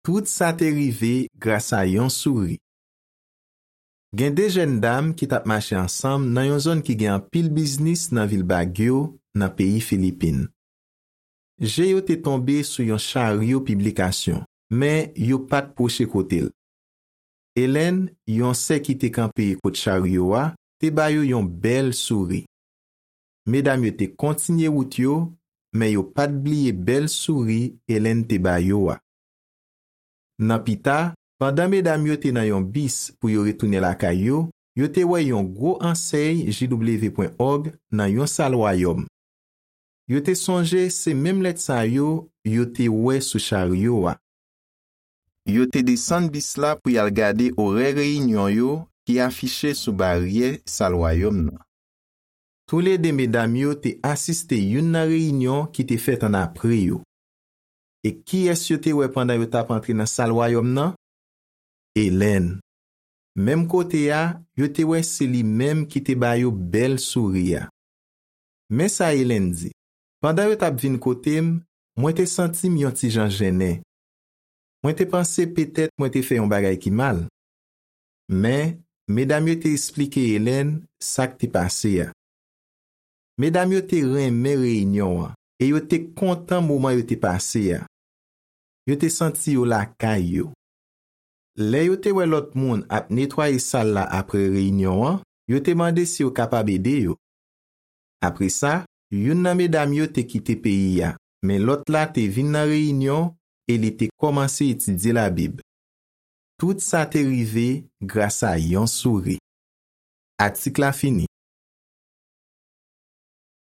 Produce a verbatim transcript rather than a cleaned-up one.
Tout sa te rive gras a yon souri. Gen de jèn dam ki t ap mache ansanm nan yon zòn ki gen anpil biznis nan vil Baguio, nan peyi Filipin. Je yo te tonbe sou yon charyo piblikasyon, men yo pa t pwoche kote l. Hélène, yon sè ki te kanpe kot charyo a, te ba yo yon bèl souri. Medam yo te kontinye wout yo, men yo pa t bliye bèl souri Hélène te ba yo a. Nan pita, pandan medam yo te nan yon bis pou yo retounen lakay yo, yo te wè yon gwo ansèy J W pwen òg nan yon sal wayòm. Yo te sonje se menm lèt sa yo yo te wè sou charyo a. Yo te desann bis la pou y al gade orè reyinyon yo ki afiche sou baryè sal wayòm nan. Toulede medam yo te asiste youn nan reyinyon ki te fèt annapre yo. E kiyès yo te wè pandan yo t ap antre nan sal wayòm nan? Hélène. Menm kote a, yo te wè se li menm ki te ba yo bèl souri a. Men sa Hélène di: Pandan yo t ap vin kote m, mwen te santi m yon ti jan jennen. Mwen te panse petèt mwen te fè yon bagay ki mal. Men, medam yo te esplike Hélène sa k te pase a. Medam yo te renmen reyinyon an e yo te kontan moman yo te pase a. Yo te santi yo lakay yo. Lè yo te wè lòt moun ap netwaye sal la apre reyinyon an, yo te mande si yo kapab ede yo. Apre sa, youn nan medam yo te kite peyi a, men lòt la te vin nan reyinyon e li te kòmanse etidye Labib. Tout sa te rive gras a yon souri. Atik la fini.